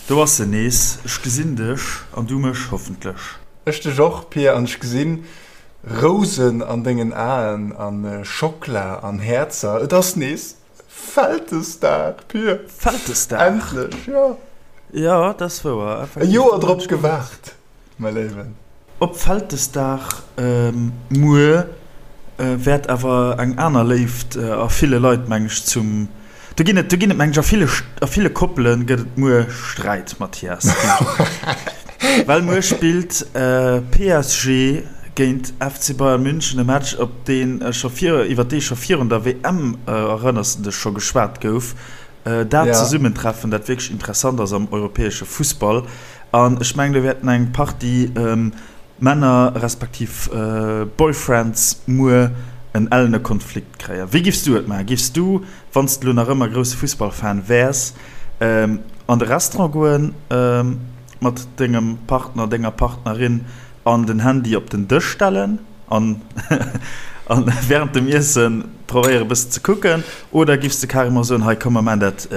Do ass en nees, ech gesinn dech an du mech hoffentlech. Ech dech och, Pir, an ech gesinn Rousen an dengen Aen an Schockla an Häerzer. Et ass nees Vältesdag, Pir. Vältesdag? Endlech, jo. Jo, dat ass wouer, effektiv. E Joer drop gewaart. Mäi Léiwen. Op Vältesdag muer wäert awer eng aner Léift a ville Leit, meng ech, zum. Do ginn et, do ginn et, meng ech, a ville, a ville Koppele gëtt et muer Sträit, Mathias. Well muer spillt PSG géint FC Bayern München, e Match, op dee scho vir, iwwer dee scho virun der WM, erënners de dech, scho geschwat gouf. Dat Zesummentreffen, dat wierklech interessant ass am europäesche Fussball. An ech mengen, do wäerten eng Partie Männer respektiv Boyfriends muer en ellene Konflikt kréien. Wéi giffs du et maachen? Giffs du, wann s de elo nach ëmmer grousse Fussballfan wäers, an de Restaurant goen mat dengem Partner, denger Partnerin an den Handy op den Dësch stellen an wärend dem Iessen probéiere bëssen ze kucken? Oder giffs de carrément soen, hei komm mer maachen dat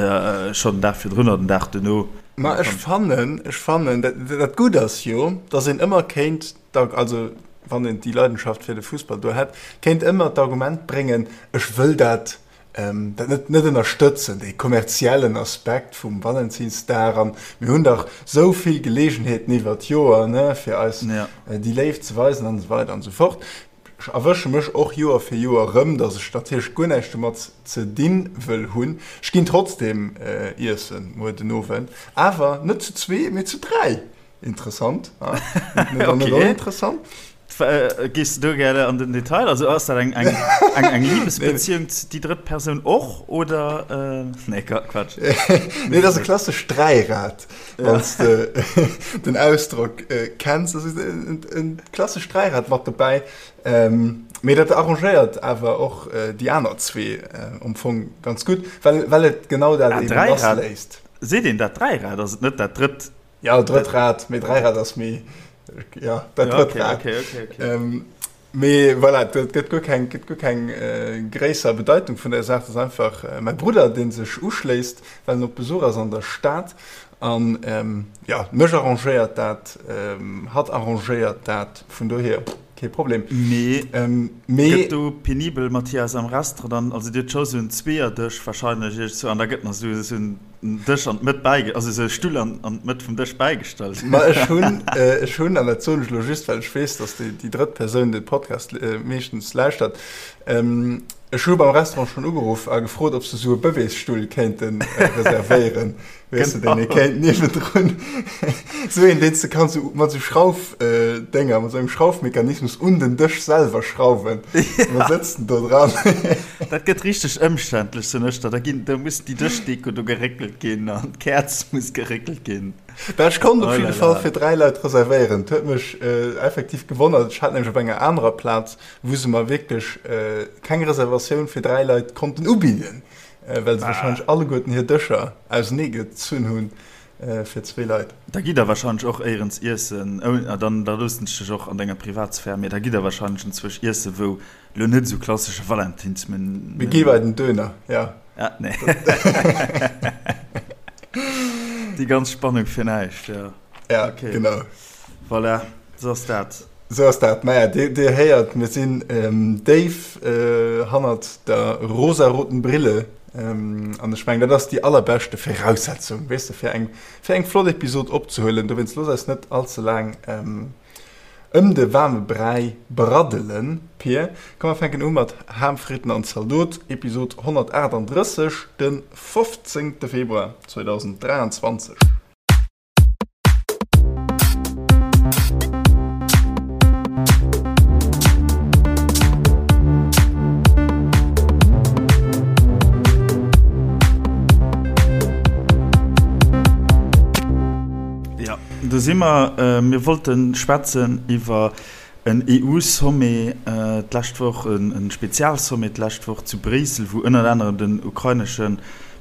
schonn den Dag virdrun oder den Dag duerno? Ma ech fannen, ech fannen, dat, dat Gutt ass jo, datt een ëmmer kéint, also wann een déi Leidenschaft fir de Fussball do hätt, kéint ëmmer d'Argument bréngen, ech wëll dat, dat net, net ënnerstëtzen, dee kommerziellen Aspekt vum Valentinsdag an mir hunn dach esou vill Geleegenheeten iwwer d'Joer, ne, fir eis déi Léift ze weisen an esou weider an esou fort. Ech erwësche mech och Joer fir Joer erëm, dass ech natierlech guer näischt domat ze dinn wëll hunn. Ech ginn trotzdem iessen muer den Owend, awer net zu zwee, mee zu 3. Interessant, ha? Net okay. Oninteressant. Gees du do gäre an den Detail? Also ass dat eng, eng, eng, eng Liebesbeziehung, déi drëtt Persoun och, oder? Nee, Quatsch. Nee, dat ass e klassescht Dräirad. Wann s de den Ausdrock kenns. Dat ass e klassescht Dräirad mat dobäi. Mee dat arrangéiert awer och déi aner zwee am Fong ganz gutt, well, well et genau dat eeben lassléisst. Seet een dat Dräirad? Ass et net dat drëtt? Jo, drëtt Rad, mee Dräirad ass méi, jo, dat drëtt Rad. Okay, okay, okay. Mee voilà, et gëtt guer keng, gëtt guer keng gréisser Bedeitung vun der Saach. Et ass einfach mäi Brudder, dee sech uschléisst, well en op Besuch ass an der Stad. An jo, mech arrangéiert dat, hatt arrangéiert dat, vun dohier kee Problem. Mee gëtt do penibel, Mathias, am Restaurant dann, also Dir hutt scho sou en Zweeërdësch wahrscheinlech iergendzwou an da gëtt nach sou en Dësch an d'Mëtt bäige, also esou e Stull an an d'Mëtt vum Dësch bäigestallt. Ma ech hunn, ech hunn, an dat soen ech elo just, well ech weess, datt déi, déi drëtt Persoun de Podcast meeschtens lauschtert, ech hu beim Restaurant schonn ugeruff a gefrot, ob se esou e Bëbeesstull kéinte reservéieren, weess de, deen ee kéint niewendrun, esou een, deen s de kanns esou mat esou Schraufdénger, mat esou engem Schraufmechanismus un den Dësch selwer schrauwen. An da sëtzt en do dran. Dat gëtt richteg ëmständlech, soen ech der. Da ginn, da muss déi Dëschdeko do geréckelt ginn an d'Käerz muss geréckelt ginn. Bah, ech konnt op jidde Fall fir 3 Leit reservéieren. Et huet mech effektiv gewonnert. Ech hat nämlech op enger anerer Plaz, wou se mer wierklech keng Reservatioun fir 3 Leit konnten ubidden, well se warscheinlech alleguerten hir Dëscher ausenee gezunn hunn fir zwee Leit. Da gitt der warscheinlech och éierens iessen, dann da loossen ech dech och an denger Privatsphär, mee da gitt der warscheinlech enzwousch iessen, wou Lo net esou klassesche Valentinsmenü. Mir gi bei den Döner, ja. Ah, nee. Déi ganz Spannung fir näischt, ja. Ja, okay. Genau. Voilà, sou ass dat. Sou ass dat. Maja, Dir, Dir héiert, mir sinn ähm, déif äh, hannert der rosaroten Brille. Ähm, an ech mengen, dat ass déi allerbeschte Viraussetzung, weess de, fir eng, fir eng flott Episod opzehuelen. Dowéinst looss eis net allze laang ähm, Ëm de waarme Bräi braddelen, Pir. Komm mer fänken u mat Ham, Fritten an Zaldot, Episod 138, de 15 Februar 2023. Do si mer. Mir wollte schwätzen iwwer en EU-Sommet d'lescht Woch, e Spezialsommet d'lescht Woch zu Bréissel, wou ënnert anerem den ukrainesche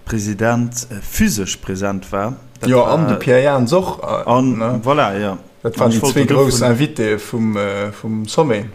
President physesch present war. Jo, an de Pierre Jans och. An voilà, jo. Dat waren déi zwee grouss Invitéë vum Sommet.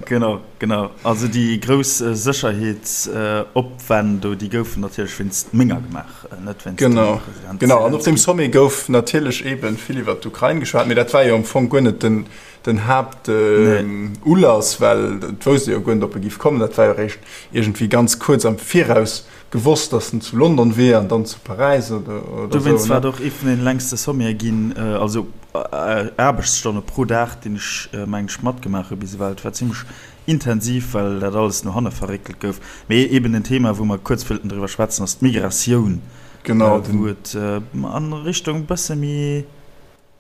Genau, genau. Also déi grouss Sécherheetsopwänn do, déi goufen natierlech wéinst menger gemaach, net wéinst dem Genau, President genau. An op deem Selenskyj. Sommet gouf natierlech eebe vill iwwert d'Ukrain geschwat, mee dat war jo am Fong guer net den, den Nee. Haaptulass, well et wousst ee jo guer net, ob e géif kommen. Dat war jo eréischt iergendwéi ganz kuerz am Viraus gewosst, datt en zu London wier an dann zu Paräis oder, oder sou, Dowéinst war ne? et och ee vun den längste Sommete ginn, also Aarbechtsstonne pro Dag, deen ech, mengen ech, matgemaach hu bis ewell. Et war zimmlech intensiv, well dat alles no hanne verréckelt gouf. Mee eben en Thema, wou mer kuerz wëllten driwwer schwätzen, ass d'Migratioun, Genau, wou den. et a Richtung e bësse méi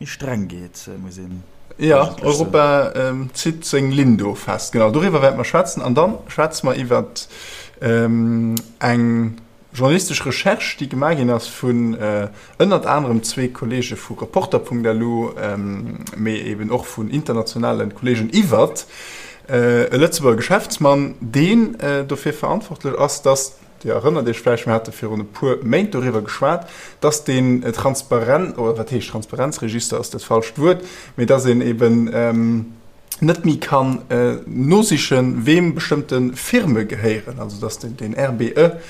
streng geet, muss een Jo, eigentlech soen. Europa zitt seng Linn do fest. Genau, doriwwer wäerte mer schwätzen. An da schwätze mer iwwer eng Journalistesch Recherche, déi gemaach ginn ass vun ënnert anerem zwee Kolleege vu Reporter.lu, mee eben och vun internationale Kolleegen iwwert e Lëtzebuerger Geschäftsmann, deen dofir verantwortlech ass, dass, Dir erënnert Iech vläicht, mir hate virun e puer Méint doriwwer geschwat, dass deen Transparenz, oder wat heescht Transparenzregister ass dat falscht Wuert, mee dass een eben net méi kann nosichen, weem bestëmmte Firme gehéieren, also dass den RBE,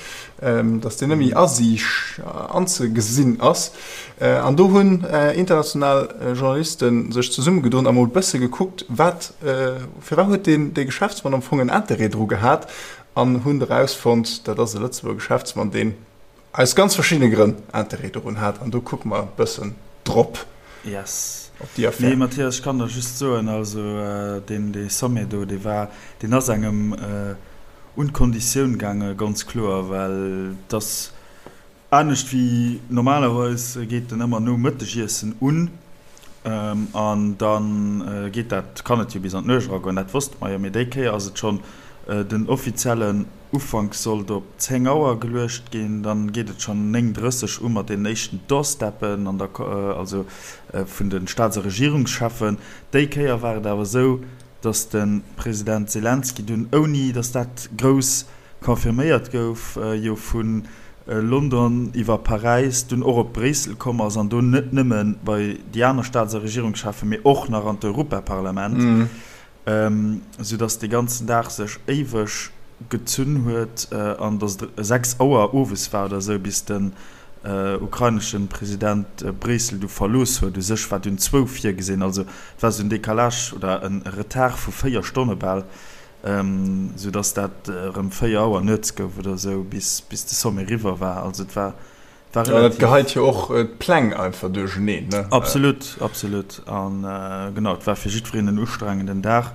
dass deen net méi asiicht, anzegesinn ass. An do hunn international Journaliste sech zesummegedoen a mol bësse gekuckt, wat, firwat huet deen dee Geschäftsmann am Fong en Interêt dru gehat an hunn erausfonnt, dat ass e Lëtzebuerger Geschäftsmann, deen Aus ganz verschiddene Grënn Interêt dorun hat an do kucke mer e bëssen drop Yes. op déi Affär. Nee Mathias, ech kann der just soen, also deen dee Sommet do, dee war, deen ass engem un d'Konditioun gaange ganz kloer, well et ass anescht wéi normalerweis geet en ëmmer nom Mëttegiessen un an da geet dat, kann et jo bis an d'Nuecht eragoen, dat wosste mer jo, mee déi Kéier ass et schonn den offiziellen Ufank sollt op 10 Auer geluecht ginn, dann geet et schonn 9:30 u mat deenen éischten Doorsteppen an der, also vun de Staats a Regierungscheffen. Déi Kéier war et awer esou, datt de President Selenskyj dunn, ouni datt dat grouss confirméiert gouf, jo vu London iwwer Paräis dunn och op Bréissel komm ass an do net nëmme bei déi aner Staats a Regierungscheffen, mee och nach an d'Europaparlament. Sou dass dee ganzen Dag sech éiweg gezunn huet an dass et 6 Auer owes war oder esou, bis den ukrainesche President Bréissel du verlooss huet. U sech war dunn zwou virgesinn, also et war esou en Décalage oder e Retard vu 4 Stonne bal, sou dass dat erëm 4 Auer nuets gouf oder esou, bis de Sommet eriwwer war. Also et war War relativ. Ja, dat geheit jo och d'Pläng einfach duercheneen, ne? Absolut, absolut. An genau, et war fir jiddwereen en ustrengenden Dag,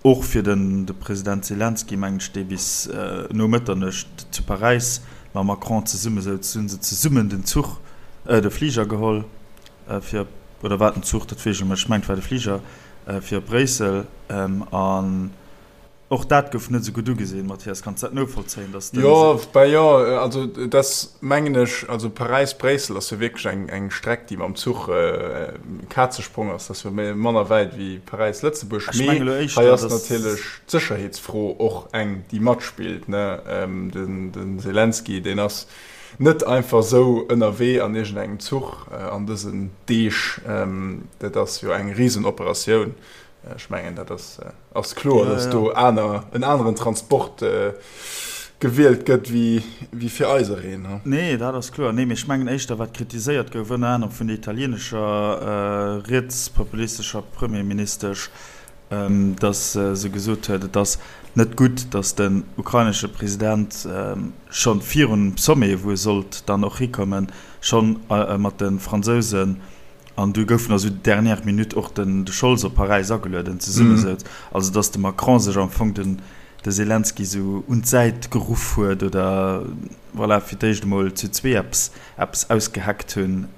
och fir den de President Selenskyj, mengen ech, dee bis no Mëtternuecht zu Paräis mam Macron zesumme souz. Hu se zesummen den Zuch, de Fliger geholl fir op, oder war et den Zuch, dat weess ech net méi, ech mengen et war de Fliger, fir op Bréissel. An Och dat gouf net esou gutt ugesinn, Mathias. Kanns dat novollzéien, dass den. Jo, ben jo, also et ass, mengen ech, also Paräis-Bréissel ass jo wierklech eng, eng Streck, déi mam Zuch e Kazesprong ass. Dat ass jo méi, manner wäit wéi Paräis-Lëtzebuerg. Ech Mee menge lo hei éischter, ass dass. natierlech d'Sécherheetsfro och eng, déi matspillt, ne. Den, den Selenskyj, deen ass net einfach esou ënnerwee an iergendengem Zuch an dësen Deeg. Dat ass jo eng Risenoperatioun. Ech mengen, dat ass, ass kloer, Ja, dass ja. do aner, en aneren Transport gewielt gëtt wéi, wéi fir eisereen. Nee, dat ass kloer. Nee, mee ech mengen éischter, wat kritiséiert gouf, ënner anerem vun der italienescher rietspopulistescher Premierministesch, dass se gesot huet, et ass net gutt, dass den ukrainesche President scho virun dem Sommet, wou e sollt dann och hikommen, scho mat de Fransousen An du goufen also dernière minute och den de Scholz op Paräis agelueden, zesummesouz. Also datt de Macron sech am Fong den de Selenskyj sou un d'Säit geruff huet oder voilà, fir d'éischt emol zu zwee eppes eppes ausgeheckt hunn.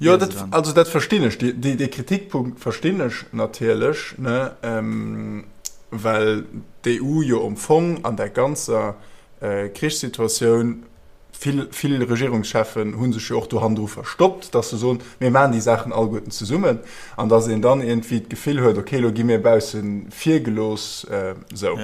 Jo, dat, also dat verstinn ech, dee dee Kritikpunkt verstinn ech natierlech, ne, well d'EU jo am Fong an där ganzer Krichssituatioun. Vill, vill Regierungscheffen hu sech jo och do hannendru verstoppt, dass se soen, mir maachen déi Saachen alleguerten zesummen, an dass een dann iergendwéi d'Gefill huet, okay, elo gi mir bausse vir gelooss. Esou.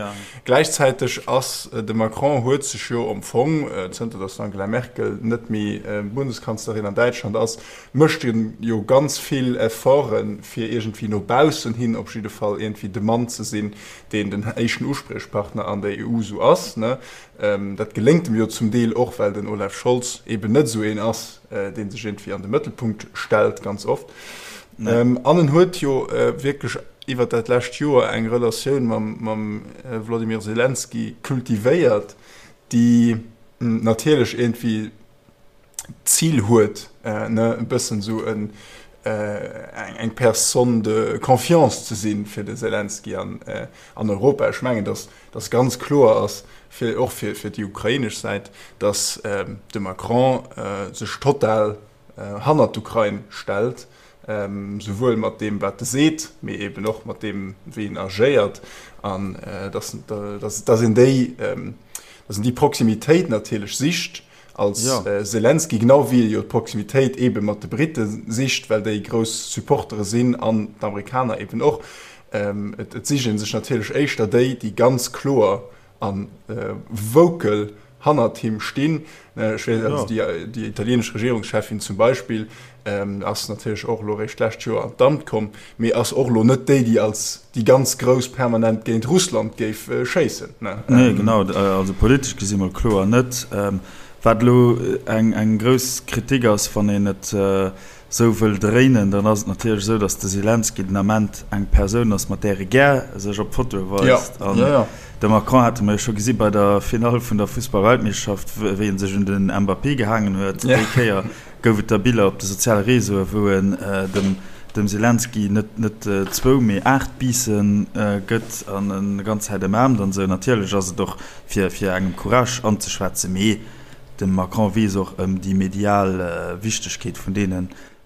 Gläichzäiteg ass de Macron huet sech jo am Fong, zënter dass d'Angela Merkel net méi Bundeskanzlerin an Däitschland ass, mécht e jo ganz vill Efforten, fir iergendwéi no baussen hin op jidde Fall iergendwéi de Mann ze sinn, deen den éischten Uspriechpartner an der EU esou ass. Dat geléngt em jo zum Deel och, well den Olaf Scholz eben net esou een ass, dee sech iergendwéi an de Mëttelpunkt stellt, ganz oft. An en huet jo wierklech iwwer dat lescht Joer eng Relatioun mam Wladimir Selenskyj kultivéiert, déi natierlech iergendwéi d'Zil huet, ne, e bëssen esou en, eng Personne de confiance ze sinn fir de Selenskyj an, an Europa. Ech mengen, datt, datt ganz kloer ass, fir, och fir, fir déi ukrainesch Säit, datt de Macron sech total hannert d'Ukrain stellt, souwuel mat deem, wat e seet, mee eben och mat deem, wéi en agéiert, an datt, datt, datt een déi, datt een déi Proximitéit natierlech sicht, als Selenskyj, genau wéi e jo d'Proximitéit eebe mat de Britte sicht, well déi grouss Supportere sinn an d'Amerikaner eeben och. Et sicht ee sech natierlech éischter déi, déi ganz kloer a vocal hannert him stinn. Ech weess, also déi italienesch Regierungscheffin zum Beispill ass natierlech och elo eréischt d'lescht Joer an d'Amt komm, mee ass och elo net déi, déi als déi ganz Grouss permanent géint Russland géif schéissen. Nee, genau, also politesch gesi mol kloer net. Wat elo eng grouss Kritik ass, wann een et esou wëll dréinen, dann ass et natierlech esou, datt de Selenskyj den Ament eng Persoun ass, mat där e gär sech op Fotoe weist. An de Macron hate mer jo scho gesi bei der Finall vun der Fussballweltmeeschterschaft, wéi e sech un den Mbappé gehaangen huet. Déi Kéier gouf et da Biller op de soziale Reseaue wou en dem Selenskyj net zwou, mee 8 Biisse gëtt an en ganz Zäit ëmaarmt an esou. Natierlech ass et och fir engem Courage anzeschwätzen, mee de Macron weess och ëm déi medial Wichtegkeet vun deene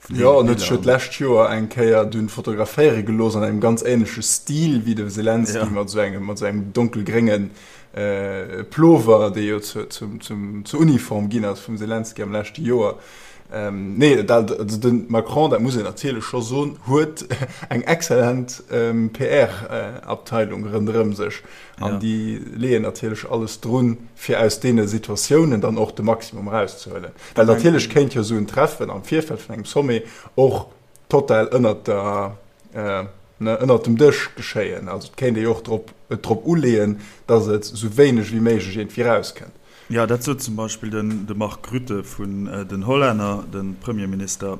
Biller. Jo, en huet sech jo d'lescht Joer eng Kéier dunn fotograféiere gelooss an engem ganz änleche Stil wéi de Selenskyj, mat esou engem donkelgrénge Plover, dee jo zur Uniform ginn ass vum Selenskyj am leschte Joer. Nee, also de Macron, dat muss een natierlech scho soen, huet eng exzellent PR-Abteilung ronderëm sech. An déi leeën natierlech alles drun, fir aus deene Situatiounen dann och de Maximum erauszehuelen. Well natierlech kéint jo esou en Treffen am Virfeld vun engem Sommet och total ënnert der, ënnert dem Dësch geschéien. Also et kéint ee jo och drop, et drop uleeën, datt et esou wéineg wéi méiglech iergendwéi erauskënnt. Jo, dat sot zum Beispill den de Mark Rutte vun den Hollänner, de Premierminister.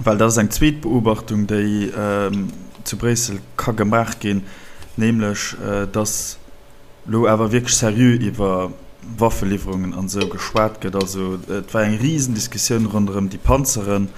Well dat ass eng zweet Beobachtung, déi zu Bréissel ka gemaach ginn, nämlech datt elo awer wierklech seriö iwwer Waffeliwwerungen an esou geschwat gëtt. Also et war eng Risendiskussioun ronderëm déi Panzeren.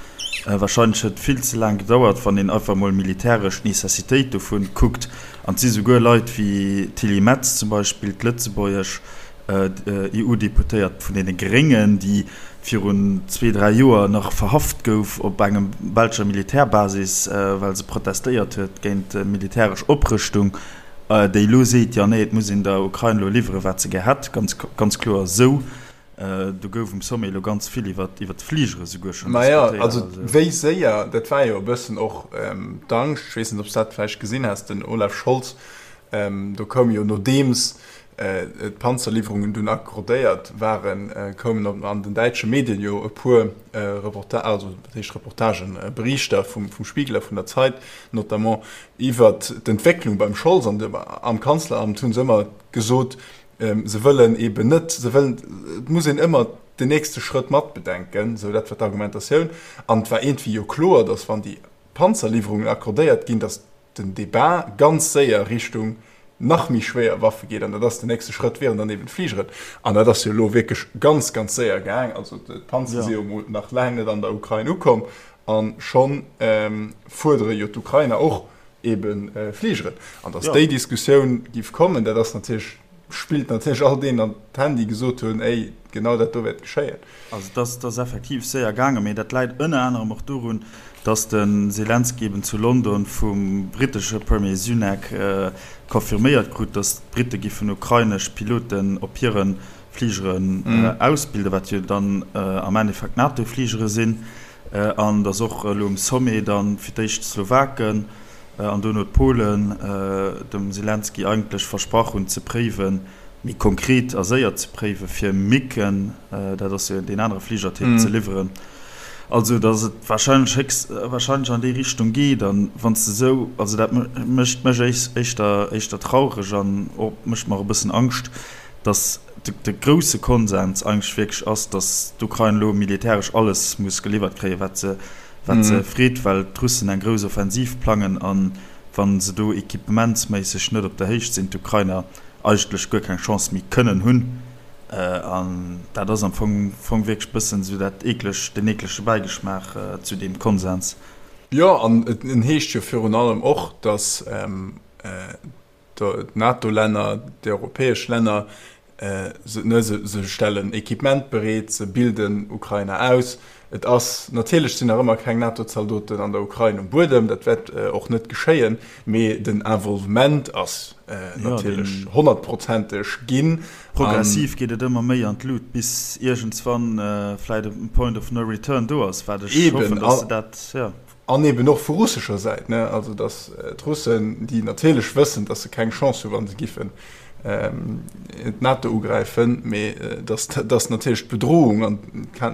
Wahrscheinlech huet et vill ze laang gedauert, wann een einfach emol militäresch d'Necessitéit dovun kuckt. An et si souguer Leit wéi d'Tilly Metz zum Beispill, d'lëtzebuergesch EU-Deputéiert vun deene Gréngen, déi virun zwee, dräi Joer nach verhaft gouf op engem belscher Militärbasis, well se protestéiert huet géint militäresch Oprëschtung. Déi elo seet, jo nee, et muss een der Ukrain elo liwweren, wat se gär hätt, ganz, ganz kloer esou. Do gouf um Sommet elo ganz vill iwwer d'Fligere souguer schonn diskutéiert. Majo, also wéi séier, dat war jo e bëssen och d'Angscht, ech weess net, ob s de dat vläicht gesinn has, den Olaf Scholz, do koum jo nodeems d'Panzerliwwerungen dunn accordéiert waren, koumen an den däitsche Medien jo e puer Reporta-, also wat heescht Reportagen, Berichter vum Spiegel a vun der Zeit notamment, Iwwert d'Entwécklung beim Scholz an am Kanzleramt hu se ëmmer gesot, se wëllen eeben net, se wëllen, et muss een ëmmer den nächste Schrëtt matbedenken, esou dat war d'Argumentatioun. An et war iergendwéi jo kloer, datt wann déi Panzerliwwerungen accordéiert ginn, datt den Debat ganz séier Richtung nach méi schwéier Waffe geet. An dat ass den nächste Schrëtt wieren dann eeben d'Fligeren. An dat ass jo elo wierklech ganz, ganz séier gaang. Also d'Panzer si jo emol nach laang net an der Ukrain ukomm. A scho fuerdere jo d'Ukrainer och ebe Fligeren. An datt déi Diskussioun géif kommen, dat ass natierlech, spillt natierlech all deenen an d'Hänn, déi gesot hunn, Ey, genau dat do wäert geschéien. Also et ass effektiv séier gaangen, mee dat läit ënner anerem och dorun, datt de Selenskyj eben zu London vum brittesche Premier Sunak confirméiert krut, datt d'Britte giffen ukrainesch Piloten op hire. Fligeren ausbilden, wat jo dann am Endeffekt NATO-Fligere sinn, an datt och elo um Sommet dann fir d'éischt d'Slowaken an dono d'Polen dem Selenskyj eigentlech versprach hunn ze préiwen, méi konkret a séier ze préiwen, fir MiGen, dat ass jo deen anere Fligertyp, ze liwweren. Also datt et wahrscheinlech héchst wahrscheinlech an déi Richtung geet. An wann s de esou, also dat mécht mech éischter éischter traureg an och mécht mer e bëssen Angscht, datt de grousse Konsens eigentlech wierklech ass, datt d'Ukrain elo militäresch alles muss geliwwert kréien, wat se wat se freet, well d'Russen eng grouss Offensiv plangen a wa se do equippementsméisseg net op der Héicht sinn, d'Ukrainer eigentlech guer keng Chance méi kënnen hunn. An dat ass am Fong Fong wierklech bëssen esou dat eekleg, den eeklege Bäigeschmaach zu deem Konsens. Jo, an et heescht jo virun allem och, datt d'NATO-Länner, déi europäesch Länner, se stellen Equipement bereet, se bilden Ukrainer aus. Et ass, natierlech sinn nach ëmmer keng NATO-Zaldoten an der Ukrain um Buedem, dat wäert och net geschéien, mee den Involvement ass natierlech honnertprozenteg ginn. Progressiv geet et ëmmer méi an d'Lut, bis iergendswann vläit e Point of no return do ass, wat ech hoffen, datt se dat, jo. An eben och vu russescher Säit, ne, also datt d'Russen, déi natierlech wëssen, datt se keng Chance hu wa se giffen d'NATO ugräifen, mee datt datt natierlech d'Bedrohung, an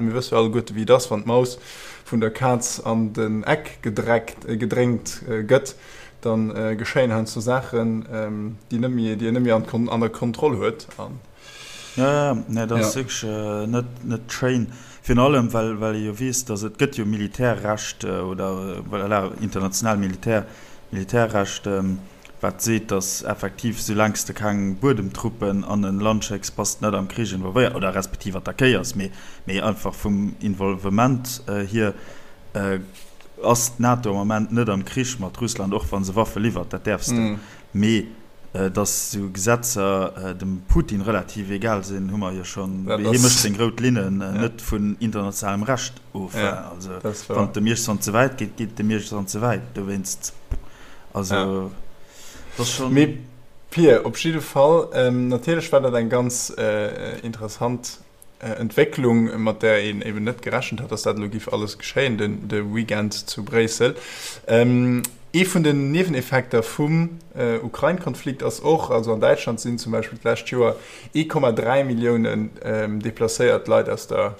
mir wësse jo alleguerte wéi et ass, wann d'Maus vun der Kaz an den Eck gedreckt, gedréngt gëtt, da geschéien heiansdo Saachen, déi net méi, déi een net méi an der Kontroll huet. An. Jo, jo, nee, dat ass wierklech net, net schéin. Virun allem, well, well ee jo weess, datt et gëtt jo Militärrecht oder, voilà, international Militär, Militärrecht, wat seet, datt effektiv, soulaang s de keng Buedemtruppen an e Land schécks, bass de net am Krich involvéiert oder respektiv attackéiers, mee, mee einfach vum Involvement hier ass d'NATO am Ament net am Krich mat Russland, och wa se Waffe liwwert, dat däerfs de. Mee Dass esou Gesetzer dem Putin relativ egal sinn, hu mer jo schonn. Hie mécht seng rout Linnen net vun internationalem Recht of. Also wann et dem iergendwann ze wäit geet, geet et dem iergendwann ze wäit. Dowéinst, also et ass schonn. Mee Pir, op jidde Fall, natierlech war dat eng ganz interessant Entwécklung, mat där een eben net gerechent hat, dass dat elo giff alles geschéien de Weekend zu Bréissel. Ee vun den Nieweneffekter vum Ukrain-Konflikt ass och, also an Däitschland sinn zum Beispill d'lescht Joer 1,3 Milliounen deplacéiert Leit aus der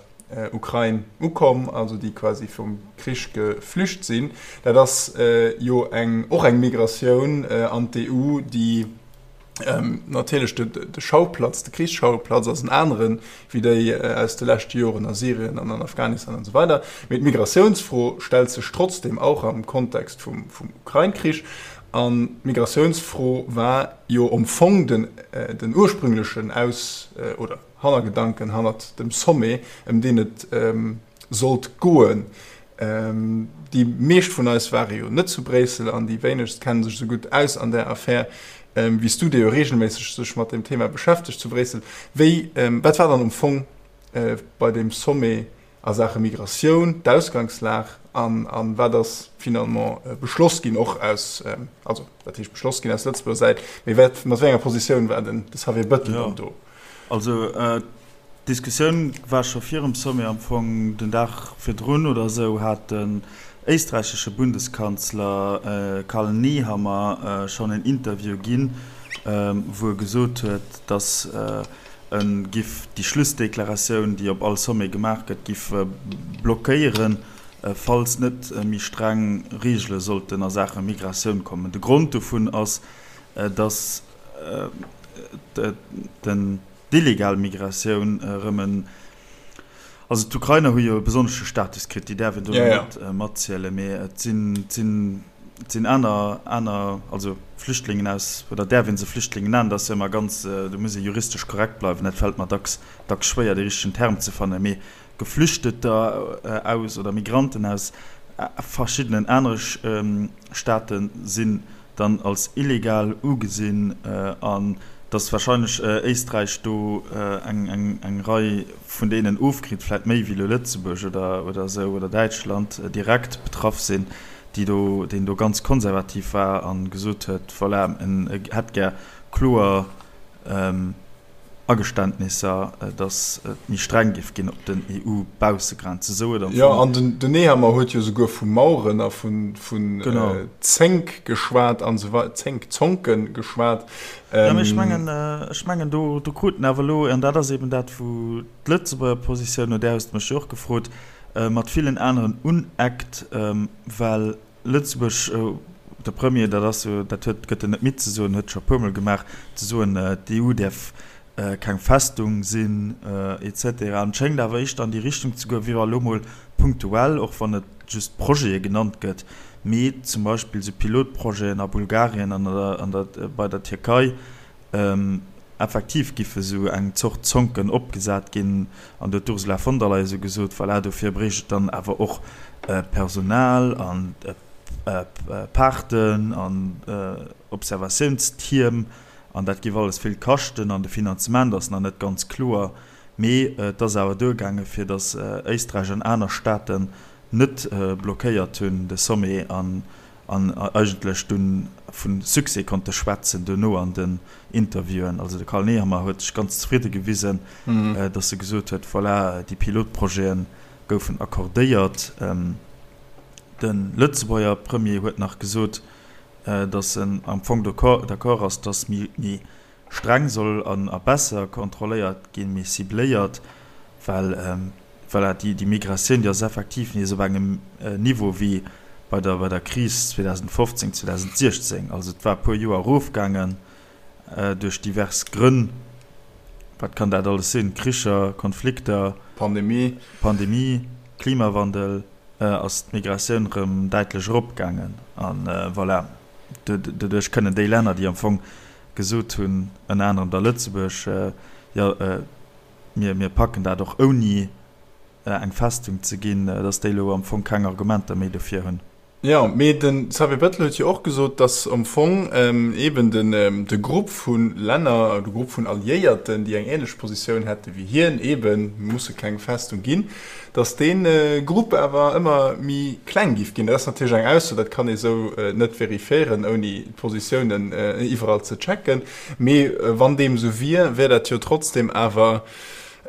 Ukrain ukomm, also déi quasi vum Krich geflücht sinn. Dat ass jo eng och eng Migratioun an d'EU, déi Natierlech de Schauplatz, de Krichsschauplatz ass en aneren, wéi déi aus de leschte Joren a Syrien an an Afghanistan an esou weider. Mee d'Migratiounsfro stellt sech trotzdeem auch am Kontext vum Ukrain-Krich. An d'Migratiounsfro war jo am Fong den den ursprünglechen Aus oder Hannergedanken hannert dem Sommet, ëm deen et sollt goen. Déi meescht vun eis ware jo net zu Bréissel an déi wéinegst kenne sech esou gutt aus an där Affär wéi s du, dee jo reegelméisseg sech mat deem Thema beschäftegt zu Bréissel. Wéi, wat war dann am Fong bei deem Sommet a Saache Migratioun d'Ausgangslag an a wat ass finalement beschloss ginn, och aus, also wat heescht beschloss ginn aus Lëtzebuerger Säit, mee wat, mat wéi enger Positioun war den de Xavier Bettel dann do? Also D'Diskussioun war scho virum Sommet, am Fong den Dag virdrun oder esou hat den éisträichesche Bundeskanzler Karl Nehammer schonn en Interview ginn, wou e gesot huet, datt e giff déi Schlussdeklaratioun, déi op all Sommet gemaach gëtt, giff blockéieren, falls net méi streng Reegele sollten a Saache Migratioun kommen. De Grond dovun ass, datt den. D'illegal Migratioun erëm en, also d'Ukrainer hu jo e besonnesche Status kritt, déi däerf een do net matzielen, mee et sinn, et sinn, et sinn aner, aner, also Flüchtlingen aus, oder däerf ee se Flüchtlingen nennen, dat ass jo ëmmer ganz, do muss ee juristesch korrekt bleiwen, dat fält mer dacks, dacks schwéier dee richtegen Term ze fannen, mee Geflüchteter aus oder Migranten aus verschiddenen anere Staate sinn dann als illegal ugesinn an datt wahrscheinlech Éisträich do eng Rei vun deenen ofkritt, vläit méi wéi elo Lëtzebuerg oder esou oder Däitschland direkt betraff sinn, déi do, deen do ganz konservativ war a gesot huet, voilà, en hätt gär kloer. Ageständnisser, datt et méi streng géif ginn op den EU-Baussegrenzen. Esou huet am Jo, Fong. an den, den Nehammer huet jo souguer vu Maueren a vu, vun Zénk geschwat an esou wei-, Zénk, Zonke geschwat. Jo, mee ech mengen, ech mengen do, do kruten awer elo, an dat ass eben dat, wou d'Lëtzebuerger Positioun, no där hues de mech jo och gefrot, mat villen aneren uneckt, well Lëtzebuerg, de Premier, dat ass jo, dat huet, gëtt en net midd ze soen, huet scho e puermol gemaach, ze soen, d'EU däerf keng Festung sinn, et cetera. An et schéngt awer éischter an déi Richtung ze goen, wéi wa elo mol punktuell, och wann et just Projete genannt gëtt, mee zum Beispill esou Pilotprojeten a Bulgarien an an der, bei der Tierkei, Effektiv giffe sou eng Zort Zonken opgesat ginn, an do huet d'Ursula von der Leyen sou gesot, voilà, dofir bréicht et dann awer och Personal an Paarten an Observatiounstierm an dat giff alles vill kaschten an de Finanzement ass nach net ganz kloer. Mee et ass awer duergaange fir datt Éisträich an aner Staaten net blockéiert hunn de Sommet an an eigentlech dunn vu Succès konnte schwätzen duerno an den Interviewen. Also de Karl Nehammer huet sech ganz zefridde gewisen, datt e gesot huet, voilà, déi Pilotprojete goufen accordéiert. De Lëtzebuerger Premier huet nach gesot, datt en am Fong d'accord ass, datt méi streng soll an a besser kontrolléiert ginn, méi cibléiert, well voilà, déi déi Migratioun, déi ass effektiv nees op engem Niveau wéi bei der bei der Kris 2015, 2016. Also et war e puer Joer erofgaangen duerch divers Grënn. Wat kann dat alles sinn? Kricher, Konflikter, Pandemie, Pandemie, Klimawandel, ass d'Migratioun erëm däitlech eropgaangen. An voilà, doduerch kënnen déi Länner, déi am Fong gesot hunn, ënner anerem da Lëtzebuerg, jo, mir, mir packen dat och ouni eng Festung ze ginn, datt déi elo am Fong keng Argumenter méi dofir hunn. Jo, mee de Xavier Bettel huet jo och gesot, datt am Fong eeben den, de Grupp vu Länner, de Grupp vun Alliéierten, déi eng änlech Positioun hätte wéi hien, eeben, mir musse keng Festung ginn, datt dee Grupp awer ëmmer méi kleng géif ginn. Dat ass natierlech eng Ausso, dat kann ee sou net verifiéieren, ouni d'Positiounen iwwerall ze checken. Mee wann deem esou wier, wär dat jo trotzdem awer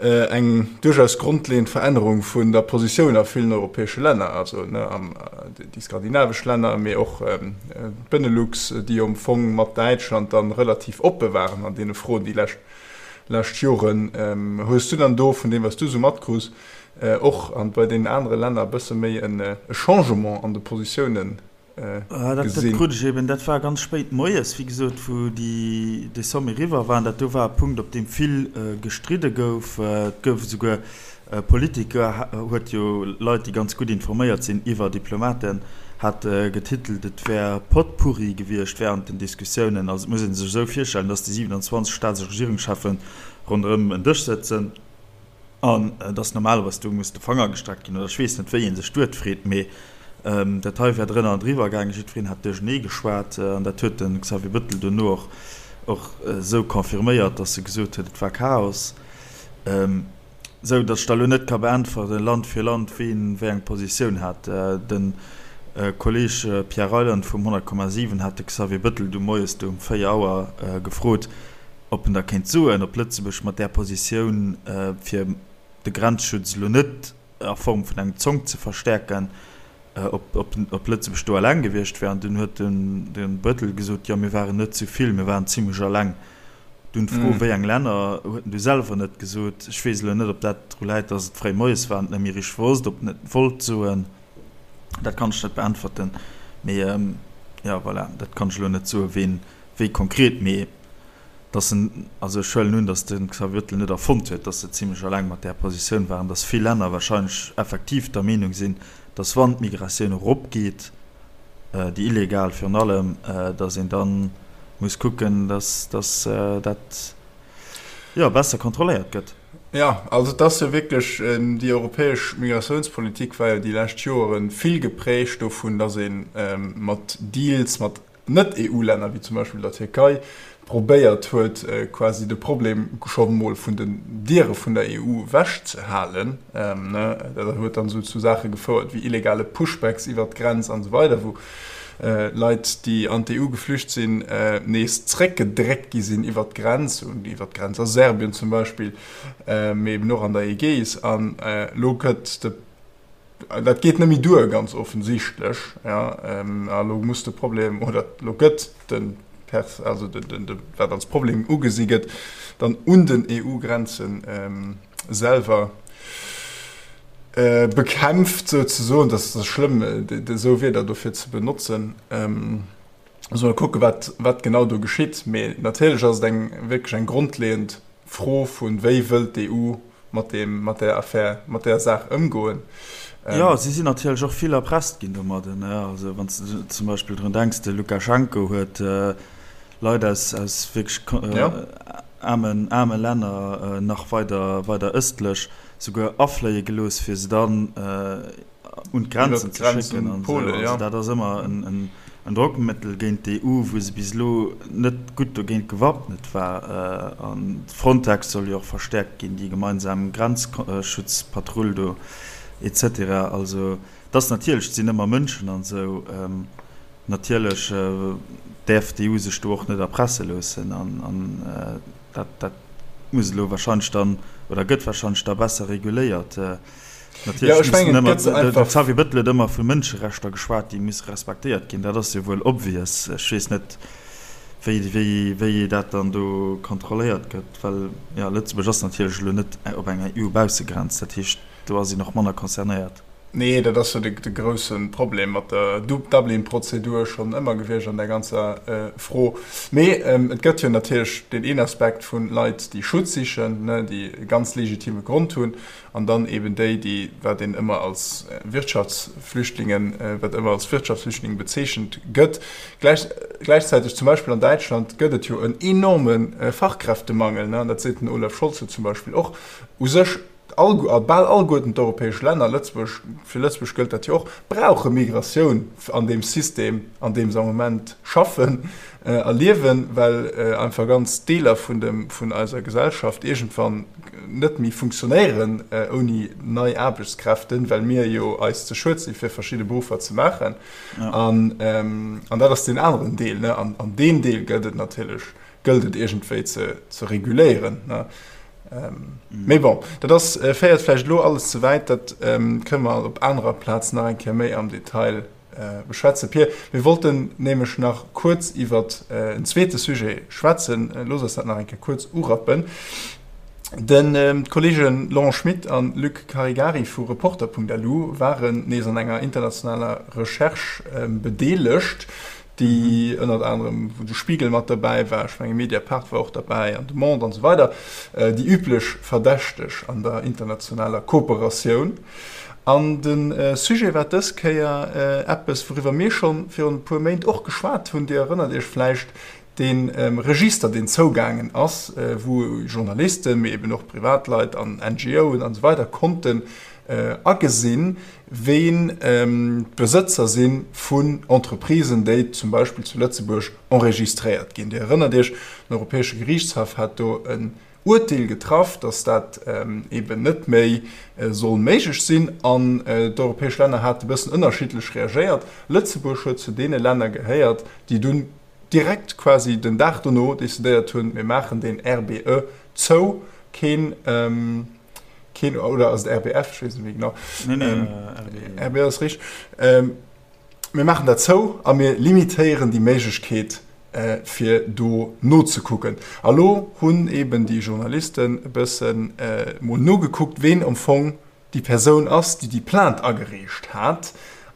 eng duerchaus grondleeënd Verännerung vun der Positioun a villen europäesche Länner, also déi skandinavesch Länner, mee och d'Benelux, déi jo am Fong mat Däitschland dann relativ oppe waren an deene Froen déi lescht lescht Joren. Hues du dann do, vun deem wat s du esou matkruss, och an bei deenen anere Länner e bësse méi e Changement an de Positiounen gesinn? Dat krut ech eben, dat war ganz spéit moies, wéi gesot, wou déi, dee Sommet eriwwer war. An dat do war e Punkt, op deem vill gestridde gouf. Et gouf esouguer Politico huet jo Leit, déi ganz gutt informéiert sinn iwwer Diplomaten, hat getitelt, et wär Potpourri gewiescht wärend den Diskussiounen. Also et muss ee sech esou virstellen, datt déi 27 Staats a Regierungscheffen ronderëm en Dësch sëtzen an datt normalerweis do muss de Fanger gestreckt ginn oder ech weess net, wéi ee sech d'Wuert freet, mee dat hei wär drënner an driwwer gaangen, jiddwereen hätt duerchenee geschwat an dat huet de Xavier Bettel duerno och och esou confirméiert, datt e gesot huet, et war Chaos. Sou datt ech der elo net ka beäntweren, Land fir Land, ween wéi eng Positioun hat. De Kolleeg Pierre Reyland vum 100,7 hat de Xavier Bettel du moies du um 4 Auer gefrot, ob en da kéint soen, ob Lëtzebuerg mat där Positioun, fir de Grenzschutz elo net a Form vun engem Zonk ze verstäerken, ob Lëtzebuerg do eleng gewiescht wär. An dunn huet de Bettel gesot, jo mir waren net zu vill, mir waren zimlech eleng. Dunn d'Fro, wéi eng Länner, huet en du selwer net gesot. Ech weess elo net, ob dat dru läit, datt et fréi moies war an et net méi richteg wosst, ob en et wollt soen. Dat kann ech net beäntwerten. Mee jo, voilà, dat kann ech elo net soen, ween wéi konkret. Mee datt en, also ech huelen un, datt de Xavier Bettel net erfonnt huet, datt se zimlech eleng mat där Positioun waren, datt vill Länner wahrscheinlech effektiv der Meenung sinn, datt wann d'Migratioun eropgeet, déi illegal virun allem, datt een da muss kucken, datt dat jo besser kontrolléiert gëtt. Jo, also et ass jo wierklech, déi europäesch Migratiounspolitik war jo déi lescht Joere vill geprägt dovun, datt ee mat Deals mat Net-EU-Länner, wéi zum Beispill der Tierkei, probéiert huet, quasi de Problem scho mol vun den Diere vun der EU ewechzehalen. Dat huet dann esou zu Saache gefouert wéi illegale Pushbacks iwwert d'Grenz an esou weider, wou. Leit, déi an d'EU geflücht sinn, nees zréckgedréckt gi sinn iwwert d'Grenz, iwwert d'Grenz a Serbien zum Beispill, mee eben och an der Ägäis. An elo gëtt de, dat geet net méi duer, ganz offensichtlech, jo, a elo muss de Problem, oder elo gëtt de Pers, also de, de, wat als Problem ugesi gëtt, dann un den EU-Grenze selwer bekämpft souzesoen, dat ass schlëmm esou Wierder dofir ze benotzen. Muss mol kucke wat wat genau do geschitt, mee natierlech ass et eng wierklech eng grondleeënd Fro vun wéi wëllt d'EU mat deem mat där Affär mat där Saach ëmgoen. Jo, si sinn natierlech och vill erpresst ginn domadden. Also wann s de zum Beispill drun denks, de Lukaschenko huet Leit aus aus wierklech aarmen aarme Länner nach weider weider ëstlech souguer afléie gelooss, fir se dann un d'Grenzen ze schécken an esou. Also dat ass ëmmer en Drockmëttel géint d'EU, wou se bis elo net gutt dogéint gewappnet war. An Frontex soll jo och verstäerkt ginn, déi gemeinsam Grenzschutzpatrull do et cetera. Also et ass natierlech, et sinn ëmmer Mënschen an esou. Natierlech däerf d'EU sech do och net erpresse loossen an dat dat muss elo wahrscheinlech dann oder gëtt wahrscheinlech da besser reguléiert. Natierlech mussen ëmmer, de Xavier Bettel huet ëmmer vu Mënscherechter geschwat, déi musse respektéiert ginn. Dat ass jo wuel obvious. Ech weess net, wéi, wéi, wéi dat dann do kontrolléiert gëtt, well jo, Lëtzebuerg ass natierlech elo net op enger EU-Baussegrenz. Dat heescht, do ass een och manner concernéiert. Nee, dat ass jo de grousse Problem mat der Dublin-Prozedur schonn ëmmer gewiescht an där ganzer Fro. Mee et gëtt jo natierlech deen een Aspekt vu Leit, déi Schutz sichen, déi e ganz legitime Grond hunn, an dann eeben déi, déi, wat een ëmmer als Wirtschaftsflüchtlingen, wat ëmmer als Wirtschaftsflüchtlinge bezeechent gëtt. Gläichzäiteg, zum Beispill an Däitschland, gëtt et jo en enorme Fachkräftemangel, an dat seet den Olaf Scholz jo zum Beispill och. U sech All, bal alleguerten d'europäesch Länner, Lëtzebuerg, fir Lëtzebuerg gëllt dat jo och, brauche Migratioun an deem System, an deem se am Moment schaffen a liewen, well einfach ganz Deeler vun dem, vun eiser Gesellschaft iergendwann net méi funktionéieren ouni nei Aarbechtskräften, well mir jo eis ze schued si fir verschidde Beruffer ze maachen. An, an dat ass deen aneren Deel, ne. An, an deen Deel gëllt et natierlech gëllt et iergendwéi ze, ze reguléieren. Ne? Ähm, mm. Mee bon, dat ass, äh, féiert vläicht elo alles ze wäit, dat ähm, kënne mer op anerer Plaz nach eng Kéier méi am Detail äh, beschwätzen. Pir, mir wollten nämlech nach kuerz iwwer äh, en zweete Sujet schwätzen. Äh, looss eis dat nach eng Kéier kuerz urappen. Den ähm, d'Kollegen Laurent Schmit an Luc Caregari vu Reporter.lu waren nees an enger internationaler Recherche ähm, bedeelegt. déi ënnert anerem, wou de Spiegel mat derbäi war, ech menge Mediapart war och derbäi an de Monde an esou weider, déi üblech Verdächteg an der internationaler Kooperatioun. An de Sujet war dës Kéier eppes, wouriwwer mir scho virun e puer Méint och geschwat hunn, Dir erënnert Iech vläicht, dee Register, deen zougaangen ass, wou Journalisten, mee eben och Privatleit an NGOen an esou weider konnten agesinn, ween d'Besëtzer si vun Entreprisen, déi zum Beispill zu Lëtzebuerg enregistréiert ginn. Dir erënnert Iech, den Europäesche Geriichtshaff hat do en Uerteel getraff, datt dat eeben net méi soll méiglech sinn. An d'europäesch Länner hate bëssen ënnerschiddlech reagéiert. Lëtzebuerg huet zu deene Länner gehéiert, déi dunn direkt quasi den Dag dono decidéiert hunn, mir maachen deen RBE zou, keen, Keen, oder ass et RBF? Ech weess net méi genau. Nee, nee, ähm, RBE. RBE ass richteg. Ähm, mir maachen dat zou a mir limitéieren déi Méiglechkeet, äh, fir do nozekucken. A lo hunn eben déi Journalisten e bëssen äh, mol nogekuckt, ween am Fong déi Persoun ass, déi déi Plainte agereecht hat.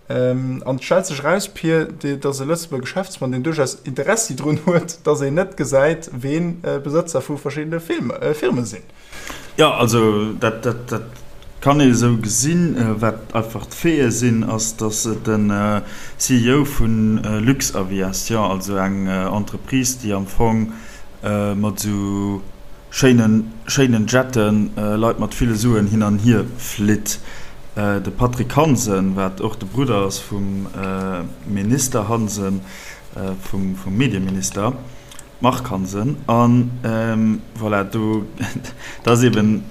Ähm, an et stellt sech eraus, Pir, dass e Lëtzebuerger Geschäftsmann, deen duerchaus Interessi drun huet, dass een net gesäit, ween äh, Besëtzer vu verschiddene Film, äh, Firme sinn. Jo, also dat, dat, dat kann ee esou gesinn. Wat einfach d'Faite sinn, ass, datt et den CEO vu Luxaviation, also eng Entreprise, déi am Fong mat esou schéinen, schéinen Jetten Leit mat ville Suen hin an hier flitt, de Patrick Hansen, wat och de Brudder ass vum Minister Hansen, vum, vum Medieminister, Marc Hansen, An voilà, do, dat ass eben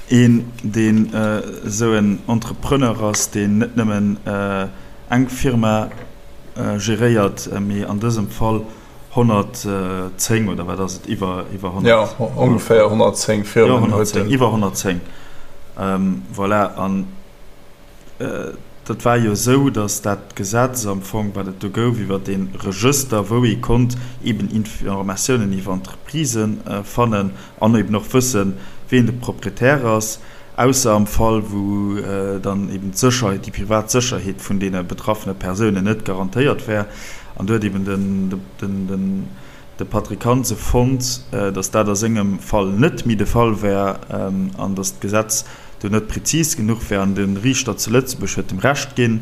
een, deen esou en Entrepreneur ass, deen net nëmmen eng Firma. geréiert, mee an dësem Fall 110 oder wat ass et, iwwer 100? Jo, ongeféier 110 Firmen huet en. Iwwer 110, voilà. An dat war jo esou, datt dat Gesetz am Fong, wat et do gouf iwwer dee Regëster, wou ee konnt eben Informatiounen iwwer Entreprisë fannen an eben och wëssen, wien de Proprietär ass, ausser am Fall, wou dann eben d'Sécherheet, déi privat Sécherheet vun deene betraffene Persounen net garantéiert wär. An do huet eben de Patrick Hansen fonnt, datt dat a sengem Fall net méi de Fall wär an datt d'Gesetz do net prezis genuch wär. An de Riichter zu Lëtzebuerg huet em Recht ginn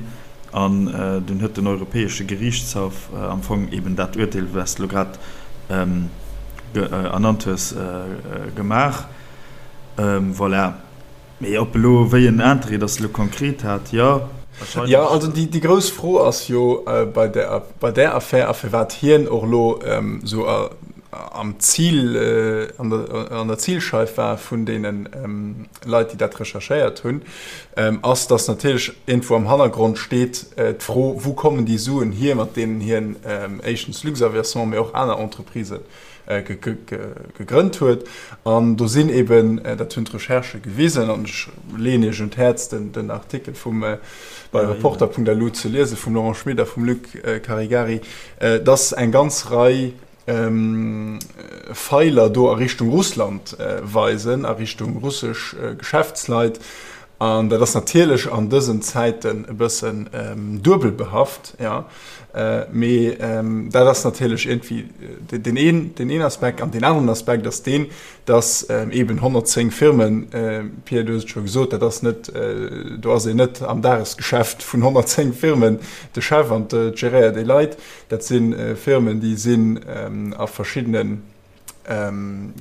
an dunn huet den Europäesche Geriichtshaff am Fong eben dat Urteel, wat s de elo grad ernannt hues, gemaach. Voilà. Mee ob elo, wéi en Interêt dass elo konkret hat, jo, wahrscheinlech. Jo, also déi grouss Fro ass jo bei där, bei där Affär a firwat hien och elo esou am Zil, an der, an der Zilscheif war vun deene Leit, déi dat recherchéiert hunn, ass, dass natierlech iergendwou am Hannergrond steet d'Fro, Wou kommen déi Suen hier, mat deenen hien éischtens Luxaviation, mee och aner Entreprisen gegrënnt huet. An do sinn eben, dat hunn d'Recherchë gewisen, an ech leeën Iech un d'Häerz, den Artikel vum bei Reporter.lu ze liesen, vum Laurent Schmit a vum Luc Caregari, dass eng ganz Rei Feiler do a Richtung Russland weisen, a Richtung russesch Geschäftsleit. An dat ass natierlech an dësen Zäiten e bëssen duebel behaft, jo. Mee dat ass natierlech iergendwéi deen een, deen een Aspekt. An deen aneren Aspekt ass deen, datt eeben 110 Firmen, Pierre, du hues et scho gesot, dat ass net, do ass een net am Dagesgeschäft vun 110 Firmen de Chef an geréiert déi Leit. Dat si Firmen, déi sinn a verschiddenen,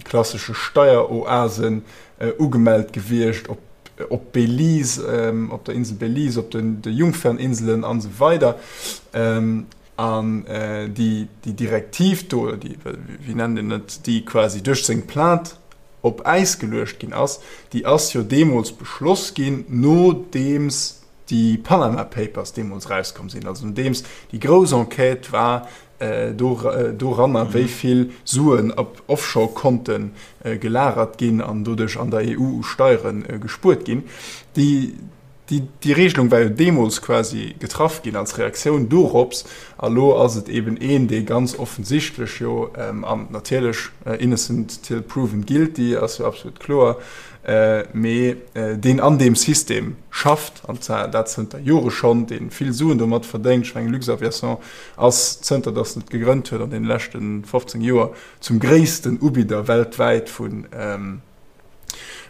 klassesche Steieroasen ugemellt gewiescht, op op Belize, op der Insel Belize, op den de Jungferninselen an esou weider. An déi déi Direktiv do, oder déi, wéi nennt een et, déi quasi duerch seng Plainte op Äis geluecht ginn ass, déi ass jo deemools beschloss ginn, nodeems déi Panama Papers deemools erauskomm sinn, also nodeems déi grouss Enquête war doranner, wéi vill Suen op Offshore-Konte gelagert ginn an doduerch an der EU u Steiere gespuert ginn. Déi Regelung war jo deemools quasi getraff ginn als Reaktioun dorops. A lo ass et eben een, dee ganz offensichtlech jo, an natierlech innocent till proven guilty ass jo absolut kloer, mee deen an deem System schafft, an zwar dat zënter Jore schonn, dee vill Suen domat verdéngt, ech mengen Luxaviation ass zënter datt en et gegrënnt huet an deene leschte 15 Joer zum gréissten Ubidder weltwäit vu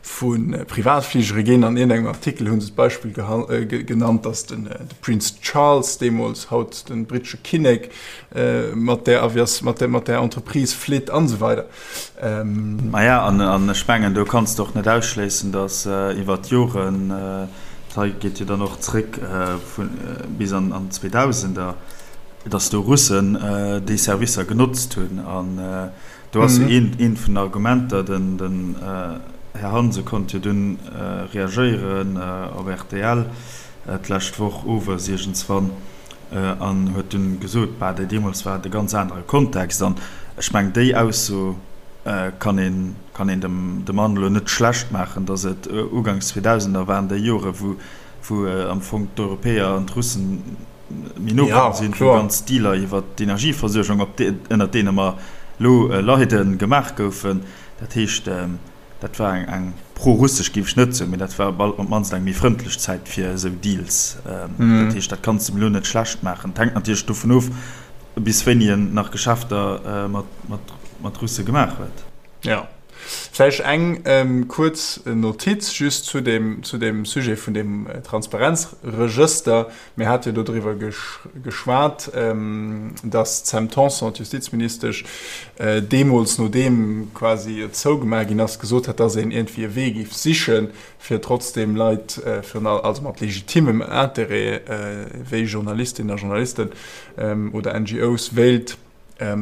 vu Privatfligere ginn. An iergendengem Artikel hu se d'Beispill genannt, datt de Prince Charles deemools, haut de brittesche Kinnek, mat där Avias, mat där mat där Entreprise flitt an esou weider. Maja, an ech mengen, do kanns de och net ausschléissen, datt iwwer d'Joren, dat hei geet jo dann och zréck bis an d'Zweedausender, datt do Russen déi Servicer genotzt hunn. An do ass jo eent vun den Argumenter, den Här Hansen konnt jo dunn reagéieren op rtl d'lescht Woch owes iergendswann an huet dunn gesot, bah, deemools war et e ganz anere Kontext. An ech mengen, déi Ausso kann een, kann een dem de Mann elo net schlecht maachen, datt et uganks 2000er waren, déi Jore wou, wou am Fong d'Europäer an d'Russen méi no komm sinn, wou ganz Dealer iwwer d'Energieversuergung, op déi, ënnert deene mer elo leiden, gemaach goufen. Dat heescht, dat war eng, eng pro-russesch géif ech net soen, mee dat war op d'mannst eng méi frëndlech Zäit fir esou Deals. Dat heescht, dat kanns de em elo net schlecht maachen. Et hänkt natierlech dovun of, bis wéini en nach Geschäfter mat Russe gemaach huet. Jo. Vläicht eng kuerz Notiz just zu deem, zu deem Sujet vun deem Transparenzregëster. Mir hate jo dodriwwer geschwat, datt d'Sam Tanson, d'Justizministesch, deemools, nodeem quasi et zougemaach ginn ass, gesot hat, datt een iergendwéi e Wee géif sichen, fir trotzdeem Leit, virun allem, also mat legitimem Interêt, wéi Journalistinnen a Journalisten oder NGOs, wéilt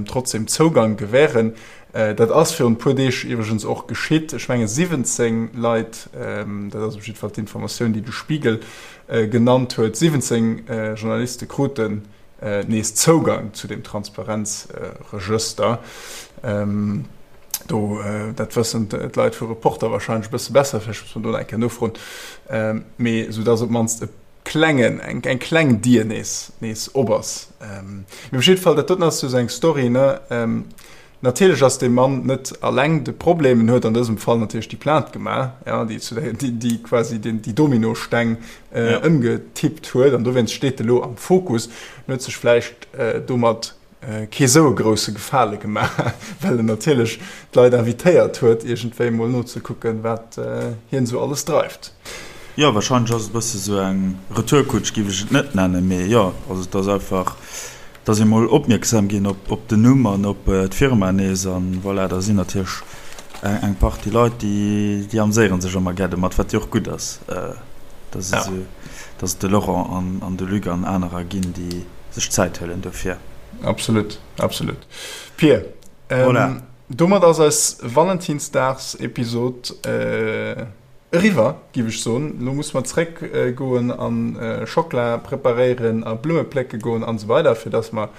trotzdem Zougang gewähren. Dat ass virun e puer Deeg iwwregens och geschitt. Ech menge 17 Leit, dat ass op jidde Fall d'Informatioun, déi de Spiegel genannt huet, 17 Journaliste kruten. nees Zougang zu deem Transparenzregëster. Do, dat wëssen d'Leit vu Reporter wahrscheinlech e bësse besser, vläicht muss mer do nach eng Kéier nofroen, mee soudass op d'mannst e klengen, eng, eng kleng Dier nees, nees op ass. Mee op jidde Fall, dat doten ass jo esou eng Story, ne? Natierlech ass dee Mann net alleng de Problem, en huet an dësem Fall natierlech déi Plainte gemaach, ja, déi zu der, déi, déi quasi den, déi Dominosteng ëmgetippt huet an dowéinst steet e lo am Fokus. En huet sech vläicht domat kee sou e grousse Gefale gemaach, well en natierlech d'Leit invitéiert huet, iergendwéi mol nozekucken, wat hien esou alles dreift. Jo, warscheinlech ass et e bësse sou eng Retourkutsch, géif ech et net nennen, mee jo, also et ass einfach, dass ee mol opmierksam ginn op den Numm an op d'Firma nees an voilà, da sinn natierlech eng Partie Leit, déi déi amséiere sech ëmmer gär domat, wat jo och gutt ass, dass et esou, dass et de Laurent an an de Luc an anerer ginn, déi sech Zäit huelen dofir. Absolut, absolut. Pir, voilà. Domat ass eis Valentinsdagsepisod Eriwwer, giff ech soen. Lo musse mer zréck goen an Schockla preparéieren a Blumme plécke goen an esou weider, fir dass mer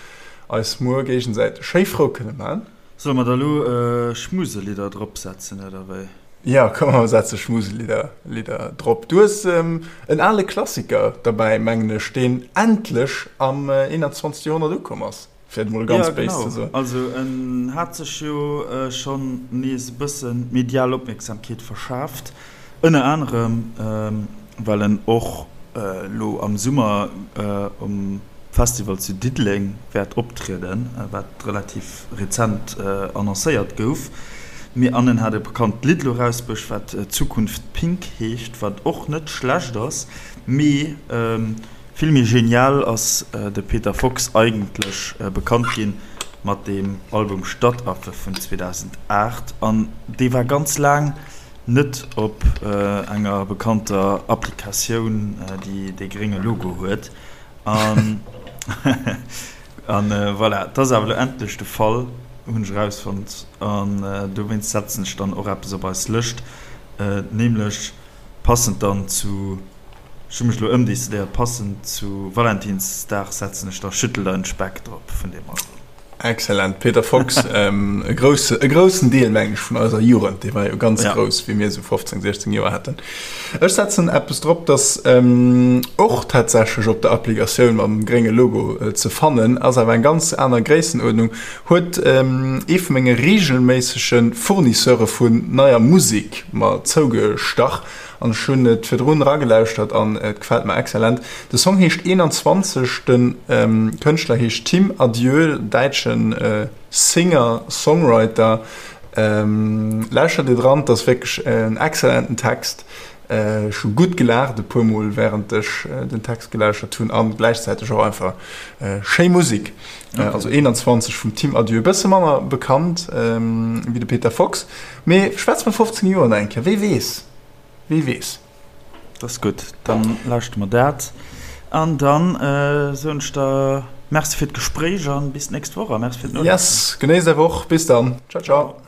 eis muer géigesäiteg schéi frou kënne man. Solle mer da lo Schmuselidder drop setzen oder wéi? Jo, komm mer setze Schmuselidder Lidder drop. Du hues en ale Klassiker derbäi, mengen ech, deen endlech am 21. Joerhonnert ukomm ass. Fir et mol ganz béis ze soen. Ja, genau. Also en hat sech jo schonn nees e bësse medial Opmierksamkeet verschaaft, ënner anerem well en och elo am Summer um Festival zu Diddeleng wäert optrieden, wat relativ rezent annoncéiert gouf. Mee an en hat e bekannt Lidd elo erausbruecht, wat Zukunft Pink heescht, wat och net schlecht ass, mee Vill méi genial ass de Peter Fox eigentlech bekannt ginn mat dem Album Stadtaffe vun 2008 an dee war ganz laang net op enger bekannter Applikatioun déi dee grénge Logo huet an an voilà, et ass awer elo endlech de Fall, hunn ech erausfonnt an dowéinst setzen ech dann och eppes op eis Lëscht, nämlech passend dann zu. Ech hu mech elo ëmdecidéiert, passend zu Valentinsdag setzen ech da Schüttel deinen Speck drop vun deem Album. Excellent, Peter Fox, e grousse, e groussen Deel mengen ech vun eiser Jugend, dee war jo ganz grouss wéi mir esou 15, 16 Joer haten. Ech setzen eppes drop, dass och tatsächlech op der Applikatioun mam grénge Logo ze fannen ass, awer eng ganz aner Gréissenuerdnung, huet ee vu menge reegelméissege Fournisseure vun neier Musek mer zougestach. An ech hunn et virdrun eragelauschtert an et gefält mer excellent. De Song heescht 21, de Kënschtler heescht Tim Adieu, däitsche Singer Songwriter. Lauschtert dir dran, et ass wierklech en excellenten Text. Ech hu gutt gelaacht e puer mol wärend ech den Text gelauschtert hunn an gläichzäiteg och einfach schéi Musek. Also 21 vum Tim Adieu, e bësse manner bekannt wéi de Peter Fox. Mee schwätz mer 15 Joer nach eng Kéier, wee weess, wee weess. Dat ass gutt, dann lauschte mer dat an dann soen ech der Merci fir d'Gespréich an bis d'nächst Woch a Merci fir d'Nolauschteren. Yes, genéiss är Woch, bis dann, ciao ciao.